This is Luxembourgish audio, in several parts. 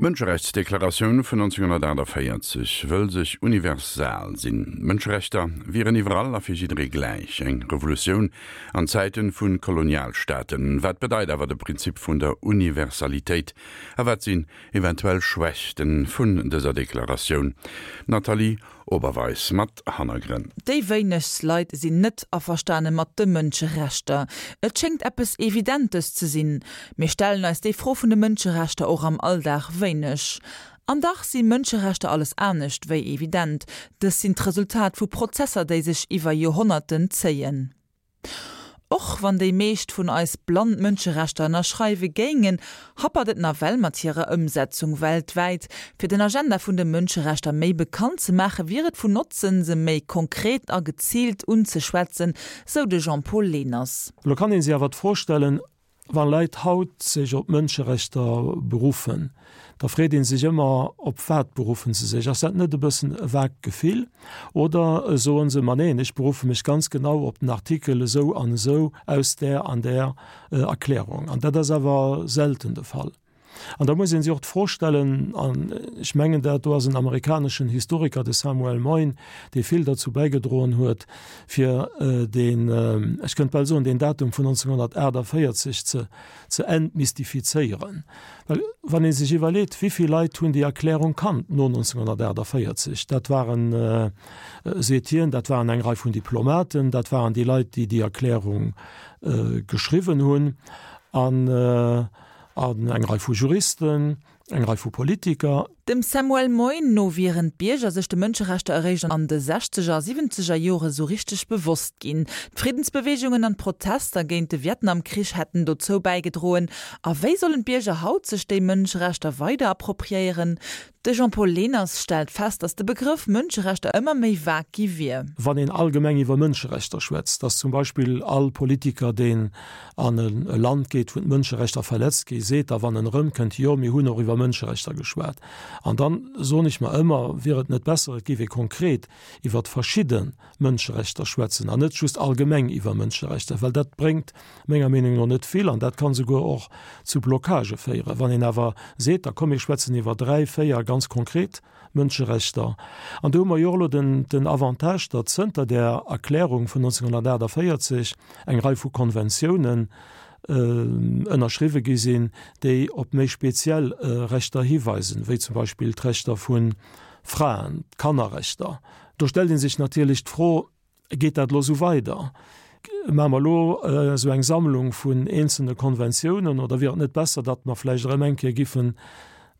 D'Mënscherechtsdeklaratioun vun 1948 wëll sech universal sinn. D'Mënscherechter wieren iwwerall a fir jidderee gläich. Eng Revolutioun an Zäiten vu Kolonialstaaten. Wat bedeit awer de Prinzip vun der Universalitéit a wat sinn eventuell Schwächten vun dëser Deklaratioun? D'Nathalie Oberweis mat Hannergrënn. Déi wéinegst Leit sinn net averstane mat de Mënscherechter. Et schéngt eppes Evidentes ze sinn. Mir stellen eis déi Fro vun de Mënscherechter och am Alldag wéineg. An dach si Mënscherechter alles anescht wéi evident. Dës sinn d'Resultat vu Prozesser, déi sech iwwer Joerhonnerten zéien. Och wann déi meescht vun eis blann d'Mënscherechter ënnerschreiwe géingen, happert et nawell mat hirer Ëmsetzung weltwäit. Fir den Agenda vun de Mënscherechter méi bekannt ze maachen, wier et vun Notzen, se méi konkret a geziilt unzeschwätzen, sou de Jean-Paul Lehners. Elo kann ee sech awer d'Fro stellen, Wa Leit haut sech op d'Mënscherechter beruffen, da freet ee sech ëmmer, op wat beruffen se sech? Ass dat net e bëssen e vaagt Gefill? Oder soen se, ma neen, ech beruffe mech ganz genau op den Artikel esou an esou aus där an där Erklärung. An dat ass awer selten de Fall. An da muss ee sech och d'Fro stellen, an ech mengen dat do ass en amerikaneschen Historiker, de Samuel Moyn, dee vill derzou bäigedroen huet, fir deen, ech kënnt bal soen, deen Datum vun 1948 ze ze entmystifizéieren. Well wann ee sech iwwerleet, wéi vill Leit hunn déi Erklärung kannt no 1948, dat waren, seet hien, dat waren eng Rei vun Diplomaten, dat waren déi Leit, déi déi Erklärung geschriwwen hunn, an, An eng Rei vu Juristen, eng Rei vu Politiker. Dem Samuel Moyn no wieren d'Bierger sech de Mënscherechter eréischt an de sechzeger a siwwenzeger Jore sou richteg bewosst ginn. D'Friddensbeweegungen an d'Protester géint de Vietnamkrich hätten dozou bäigedroen. A wéi sollen d'Bierger haut sech déi Mënscherechter weider appropriéieren? De Jean-Paul Lehners stellt fest, datt de Begrëff Mënscherechter ëmmer méi vag gi wier. Wann een allgemeng iwwer Mënscherechter schwätzt, datt zum Beispill all Politiker, deen an e Land geet, wou d'Mënscherechter verletzt gi, seet da, wann en erëmkënnt, jo, mir hunn och iwwer Mënscherechter geschwat. An dann soen ech mer ëmmer, wier et net besser, et géif ee konkret iwwer verschidde Mënscherechter schwätzen an net just allgemeng iwwer Mënscherechter, well dat bréngt menger Meenung no net vill an dat kann souguer och zu Blocagë féieren. Wann een awer seet, da komm mir schwätzen iwwer dräi, véier ganz konkret Mënscherechter, an do hu mer jo och elo den, den Avantage, datt zënter där Erklärung vun 1948 eng Rei vu Konventiounen ënnerschriwwe gi sinn, déi op méi speziell Rechter hiweisen, wéi zum Beispill d'Rechter vu Fraen, d'Kannerrechter. Do stellt ee sech natierlech d'Fro, Geet dat elo esou weider? Maache mer elo esou eng Sammlung vun eenzelne Konventiounen oder wier et net besser, datt mer vläicht erëm eng Kéier giffen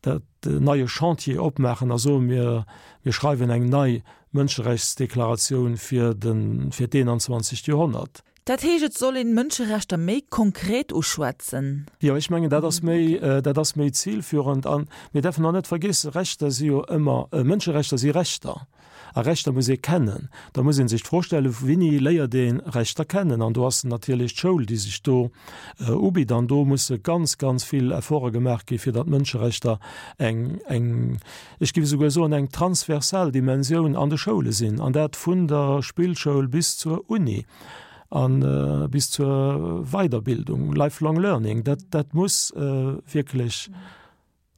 dat neie Chantier opmaachen a soen, mir, mir schreiwen eng nei Mënscherechtsdeklaratioun fir de, fir d'21. Joerhonnert? Dat heescht, et soll een d'Mënscherechter méi konkret uschwätzen? Jo, ech mengen, dat ass méi, dat ass méi zilführend. A mir däerfen och net vergiessen, Rechter si jo ëmmer, Mënscherechter si Rechter. A Rechter muss ee kennen. Da muss ee sech d'Fro stellen, Wéini léiert ee Rechter kennen? An do ass natierlech d'Schoul, déi sech do ubitt. An do musse ganz, ganz vill Efforte gemaach gi fir datt d'Mënscherechter eng, eng, ech géif esouguer soen, eng transversal Dimensioun an de Schoule sinn, an dat vun der Spillschoul bis zur Uni a bis zur Weiderbildung, lifelong learning. Dat, dat muss wierklech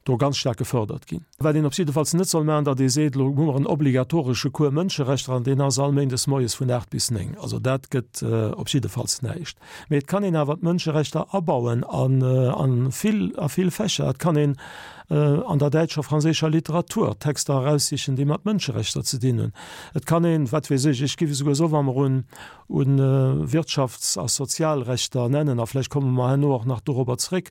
do ganz staark gefördert ginn. Wat een op jiddefalls net soll maachen, datt ee seet, elo hu mer en obligatoresche Cours Mënscherechter an deen ass all Méindes moies vun 8 bis 9. Also dat gëtt op jiddefalls näischt. Mee et kann een awer d'Mënscherechter abauen an a vill, a vill Fächer. Et kann een an der däitscher, franséischer Literatur Texter eraussichen, déi mat Mënscherechter ze dinn hunn. Et kann een, wat weess ech, ech géif esouguer soen, wa mer un un Wirtschafts a Sozialrechter nennen, a vläicht komme mer herno och nach dorobber zréck,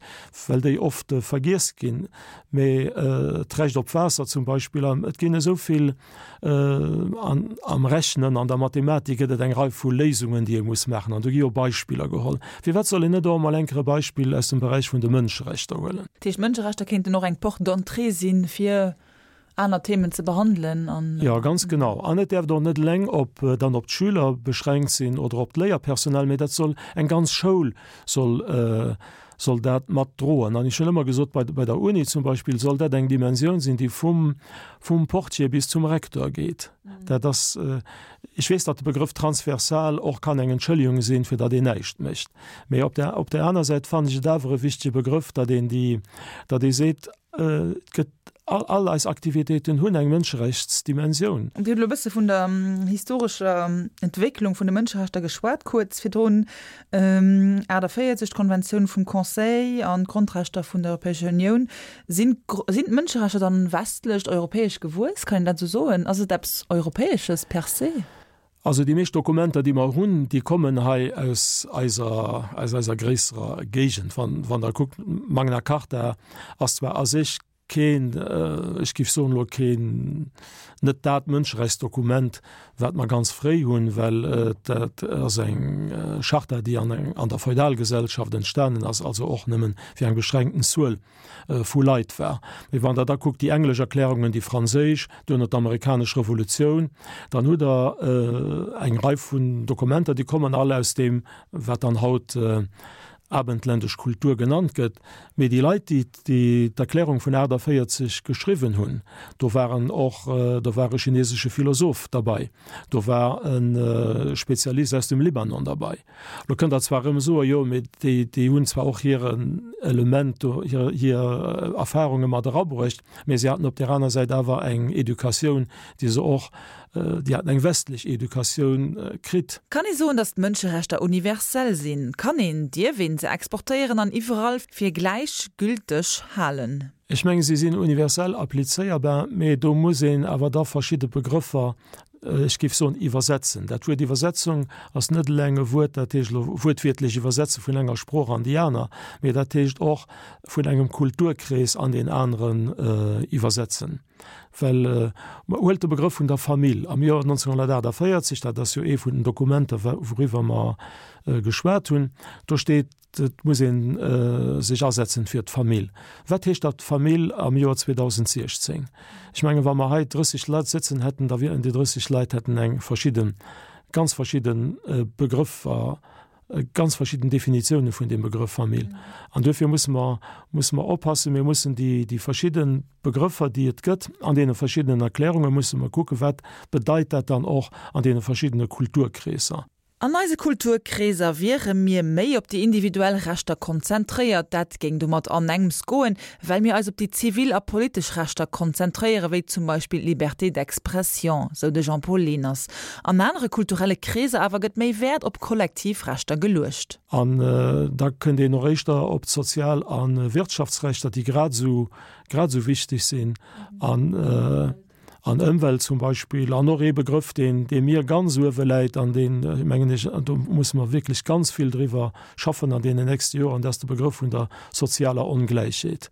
well déi oft vergiess ginn, mee d'Recht op Waasser zum Beispill, an et ginn esou vill am Rechnen, an der Mathematik gëtt et eng Rei vu Léisungen, déi ee muss maachen, an do gi jo Beispiller geholl. Firwat soll een net och emol eng Kéier e Beispill aus dem Beräich vun de Mënscherechter huelen? Dat heescht, d'Mënscherechter kéinten och eng Porte d'entrée sinn, fir aner Themen ze behandelen an. Jo, ganz genau. An et däerft och net eleng op dann op d'Schüler beschränkt sinn oder op d'Léierpersonal, mee dat soll eng ganz Schoul soll soll dat mat droen. An ech hunn ëmmer gesot, bei bei der Uni zum Beispill soll dat eng Dimensioun sinn, déi vum vum Portier bis zum Recteur geet. Dat ass, ech weess, datt de Begrëff transversal och kann eng Entschëllegung sinn, fir datt een näischt mécht. Mee op der op där aner Säit fannen ech et awer e wichtege Begrëff, datt een déi datt ee seet. Et gëtt, all, all eis Aktivitéiten hunn eng Mënscherechtsdimensioun. Dir hutt elo e bësse vun der historescher Entwécklung vun de Mënscherechter geschwat kuerz virdrun. 48, d'Konventioun vum Conseil an d'Grondrechter vun der Europäescher Unioun. Sinn, sinn d'Mënscherechter dann westlech, europäesch gewuess? Kann een dat esou soen? Ass et eppes Europäesches per se? Also déi meescht Dokumenter, déi mer hunn, déi kommen hei aus eiser, aus eiser gréisserer Géigend. Wann, wann Der kuckt, Magna Carta ass zwar a sech keen, ech géif soen elo keen, net dat Mënscherechtsdokument, wat mer ganz fréi hunn, well dat ass eng Charta, déi an eng, an der Feudalgesellschaft entstanen ass, also och nëmmen fir eng beschränkten Zuel vu Leit war. Mee wann Der da kuckt, déi englesch Erklärungen, déi franséisch, duerno d'amerikanesch Revolutioun, dann hutt Der eng Rei vun Dokumenter, déi kommen all aus deem, wat dann haut abendländesch Kultur genannt gëtt. Mee déi Leit, déi déi d'Erklärung vun 48 geschriwwen hunn, do waren och, do war e chinesesche Philosoph derbei, do war e Spezialist aus dem Libanon derbei. Lo kënnt Der zwar erëm soen, jo, mee déi, déi hunn zwar och hiren Element do, hir, hir Erfahrunge mat erabruecht, mee si haten op där aner Säit awer eng Educatioun, déi se och, déi haten eng westlech Educatioun kritt. Kann ee soen, datt d'Mënscherechter universell sinn? Kann een, dierf een se exportéieren an iwwerall fir gläichgülteg halen? Ech mengen, si sinn universell applizéierbar, mee do muss een awer da verschidde Begrëffer ech géif soen, iwwersetzen. Dat Wuert Iwwersetzung ass net eleng e Wuert, dat heescht elo wuertwiertlech iwwersetze vun enger Sprooch an déi aner, mee dat heescht och vun engem Kulturkrees an deen aneren iwwersetzen. Well, huelt de Begrëff vun der Famill am Joer 1948, dat ass jo ee vun den Dokumenter, wouriwwer mer geschwat hunn, do steet, Et muss ee sech asetzen fir d'Famill. Wat heescht dat Famill am Joer 2016? Ech mengen, wa mer hei 30 Leit sëtzen hätten, da wieren déi 30 Leit hätten eng verschidden, ganz verschidde Begrëffer, ganz verschidden Definitiounen vun deem Begrëff Famill. An duerfir musse mer, musse mer oppassen, mir mussen déi, déi verschidde Begrëffer, déi et gëtt an deene verschiddenen Erklärungen, musse mer kucken, wat bedeit dat dann och an deene verschiddene Kulturkreesser. An eise Kulturkreeser wiere mir méi op déi individuell Rechter konzentréiert. Dat géing domat anengems goen, well mir eis op déi zivil a politesch Rechter konzentréieren, wéi zum Beispill d'Liberté d'expression, sou de Jean-Paul Lehners. An anere kulturelle Kreeser awer gëtt méi Wäert op kollektiv Rechter geluecht. An da kënnt een och éischter op d'Sozial a Wirtschaftsrechter, déi grad esou, grad esou wichteg sinn. An. An Ëmwelt zum Beispill, an och ee Begrëff, deen, dee mir ganz uewe läit an deen, mengen ech, an do musse mer wierklech ganz vill driwwer schaffen an deenen nächste Joren, dat ass de Begrëff vun der sozialer Ongläichheet.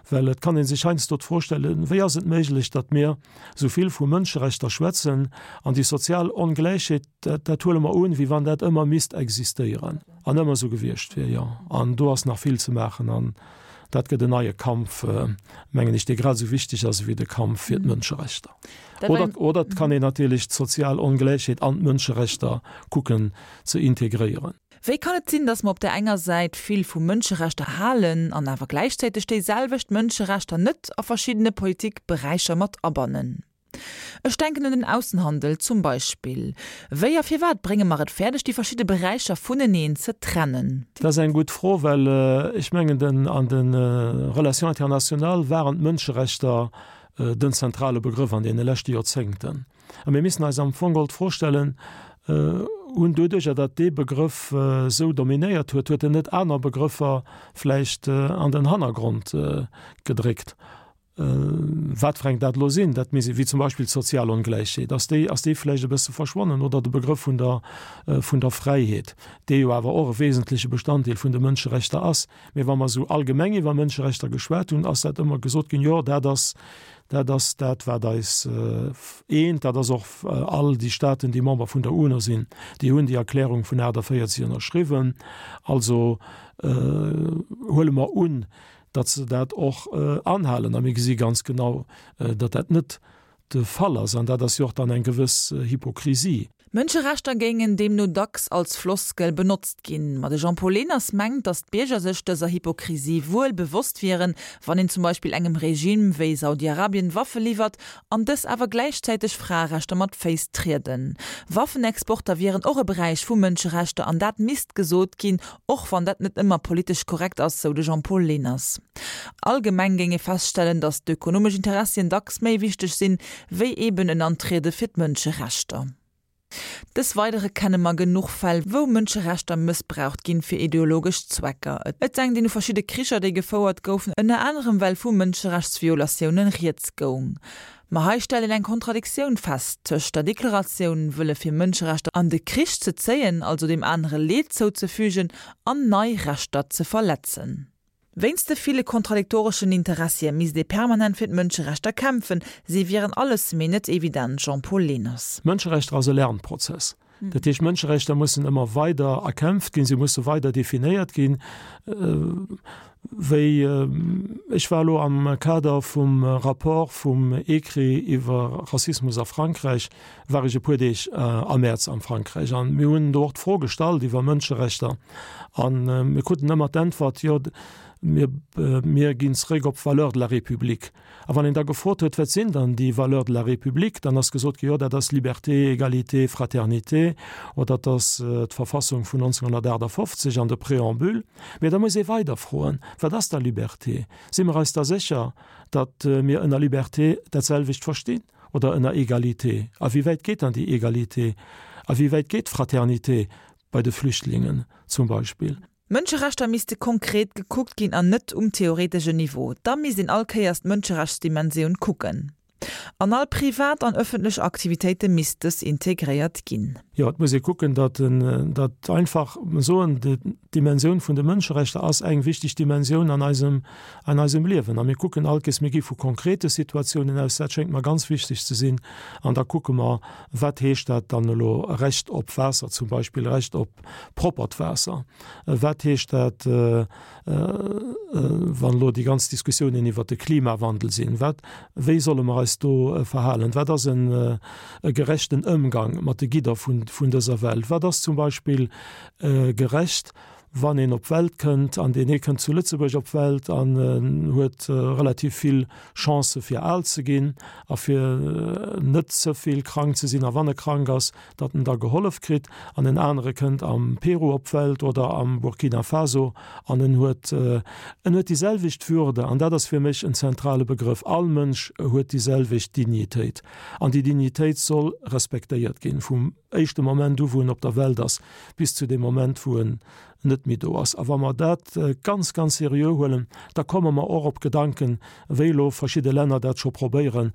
Well et kann ee sech heiansdo d'Fro stellen, Wéi ass et méiglech, datt mir esou vill vu Mënscherechter schwätzen an déi sozial Ongläichheet, dat, dat huele mer un, wéi wann dat ëmmer misst existéieren an ëmmer esou gewiescht wier? Jo, an do ass nach vill ze maachen. An Dat gëtt en neie Kampf, mengen ech, dee grad esou wichteg ass ewéi de Kampf fir d'Mënscherechter. Oder, oder et kann een natierlech d'sozial Ongläichheet an d'Mënscherechter kucken ze integréieren. Wéi kann et sinn, datt mer op där enger Säit vill vu Mënscherechter halen an awer gläichzäiteg déi selwecht Mënscherechter net a verschiddene Politikberäicher mat abannen? Ech denken un den Aussenhandel zum Beispill. Wéi a firwat brénge mer et fäerdeg, déi verschidde Beräicher vuneneen ze trennen? Dat ass eng gutt Fro, well ech mengen, den, an de Relations internationales waren d'Mënscherechter den zentrale Begrëff an deene leschte Joerzéngten. A mir missen eis am Fong geholl d'Fro stellen, Hunn doduerjer, datt dee Begrëff esou dominéiert huet, huet en net aner Begrëffer vläicht an den Hannergrond gedréckt? Wat fir eng dat elo sinn, dat misst ee, wéi zum Beispill d'sozial Ongläichheet, ass déi, ass déi vläicht e bësse verschwonnen oder de Begrëff vun der, vun der Fräiheet, dee jo awer och e wesentleche Bestanddeel vun de Mënscherechter ass. Mee wa mer esou allgemeng iwwer Mënscherechter geschwat hunn, ass dat ëmmer gesot ginn, jo dat ass, dat ass dat wat eis eent, dat ass och all déi Staaten, déi Member vun der UNO sinn, déi hunn déi Erklärung vun 48 ënnerschriwwen. Also huele mer un, datt se dat och anhalen. A mir gesi ganz genau, datt dat net de Fall ass. An dat ass jo och dann eng gewëss Hypokrisie. Mënscherechter géingen deemno dacks als Floskel benotzt ginn. Ma de Jean-Paul Lehners mengt, datt d'Bierger sech dëser Hypokrisie wuel bewosst wieren, wann een zum Beispill engem Regime wéi Saudi-Arabien Waffe liwwert an dës awer gläichzäiteg Fraerechter mat Féiss trieden. Waffenexporter wieren och e Beräich vu Mënscherechter an dat misst gesot ginn, och wann dat net ëmmer politesch korrekt ass, sou de Jean-Paul Lehners. Allgemeng géing ee feststellen, datt d'ökonomesch Interessien dacks méi wichteg sinn, wéi eben en Antriede fir d'Mënscherechter. Des Weidere kenne mer genuch Fäll, wou Mënscherechter mëssbraucht ginn fir ideologesch Zwecker. Et denkt een u verschidde Kricher, déi gefouert goufen, ënner anerem well vu Mënscherechtsviolatioune rieds goung. Ma hei stellt een eng Kontradiktioun fest tëscht der Deklaratioun, wëlle fir Mënscherechter an de Krich ze zéien, also deem anere Leed zouzefügen an nei Rechter ze verletzen. Wéinst de ville kontradiktoreschen Interessie misst ee permanent fir d'Mënscherechter kämpfen. Si wieren alles, mee net evident, Jean-Paul Lehners. Mënscherechter ass e Lernprozess. Dat heescht, Mënscherechter mussen ëmmer weider erkämpft ginn, si musse weider definéiert ginn. Wéi ech war elo am Kader vum Rapport vum ECRI iwwer Rassismus a Frankräich, war ech e puer Deeg am Mäerz am Frankräich an mir hunn do och d'Fro gestallt iwwer Mënscherechter an mir kruten ëmmer d'Äntwert, jo mir, mir ginn zeréck op d'Valeurs de la République. A wann een da gefrot huet, wat sinn dann déi Valeurs de la République, dann ass gesot ginn, jo dat ass Liberté, Égalité, Fraternité oder dat ass d'Verfassung vun 1958 an de Préambule. Mee da muss ee weiderfroen, wat ass da Liberté? Si mer eis da sécher, datt mir ënner Liberté dat selwecht verstinn? Oder ënner Egalité? A wéi wäit geet dann déi Egalité? A wéi wäit geet d'Fraternité bei de Flüchtlingen zum Beispill? Mënscherechter misste konkret gekuckt ginn an net um theoretegen Niveau. Da misst een all Kéiers d'Mënscherechtsdimensioun kucken. An all privat an ëffentlech Aktivitéite misst dës integréiert ginn. Jo, et muss ee kucken, datt datt einfach soen, d'Dimensioun vun de Mënscherechter ass eng wichteg Dimensioun an eisem, an eisem Liewen. A mir kucken all Kees, mir gi vu konkrete Situatiounen aus, dat schéngt mer ganz wichteg ze sinn. An da kucke mer, wat heescht dat dann elo, Recht op Waasser zum Beispill, Recht op proppert Waasser, wat heescht dat, wann elo déi ganz Diskussiounen iwwert de Klimawandel sinn, wat, wéi solle mer eis do verhalen, wat ass en e gerechten Ëmgang mat de Gidder vun, vun dëser Welt, wat ass zum Beispill gerecht, wann een op d'Welt kënnt an deen ee kënnt zu Lëtzebuerg op d'Welt an huet relativ vill Chancë fir al ze ginn a fir net ze vill krank ze sinn a wann e krank ass, datt en da gehollef kritt, an en anere kënnt am Peru op d'Welt oder am Burkina Faso an en huet, en huet déi selwecht Würde, an dat ass fir mech en zentrale Begrëff, all Mënsch huet déi selwecht Dignitéit an déi Dignitéit soll respektéiert ginn, vum éischte Moment u wou en op der Welt ass, bis zu deem Moment wou en net méi do ass. A wa mer dat ganz, ganz seriö huelen, da komme mer och op Gedanken, wéi elo verschidde Länner dat scho probéieren,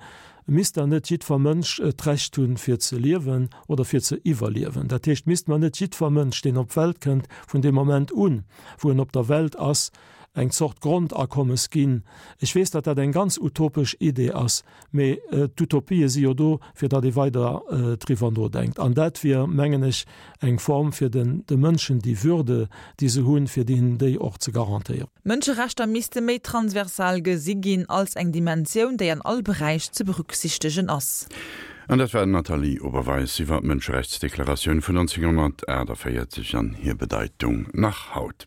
Misst dann net jiddwer Mënsch d'Recht hunn, fir ze liewen oder fir ze iwwerliewen? Dat heescht, misst mer net jiddwer Mënsch, deen op d'Welt kënnt, vun deem Moment un, wou en op der Welt ass, eng Zort Grondakommes ginn? Ech weess, datt dat eng ganz utopesch Idee ass, mee d'Utopië si jo do, fir datt ee weider driwwer nodenkt. An dat wier, mengen ech, eng Form, fir den de Mënschen déi Würde, déi se hunn, fir hinnen déi och ze garantéieren. Mënscherechter misste méi transversal gesi ginn als eng Dimensioun, déi an all Beräich ze berücksichtegen ass. An dat war d'Nathalie Oberweis iwwer d'Mënscherechtsdeklaratioun vun 1948 an hir Bedeitung nach haut.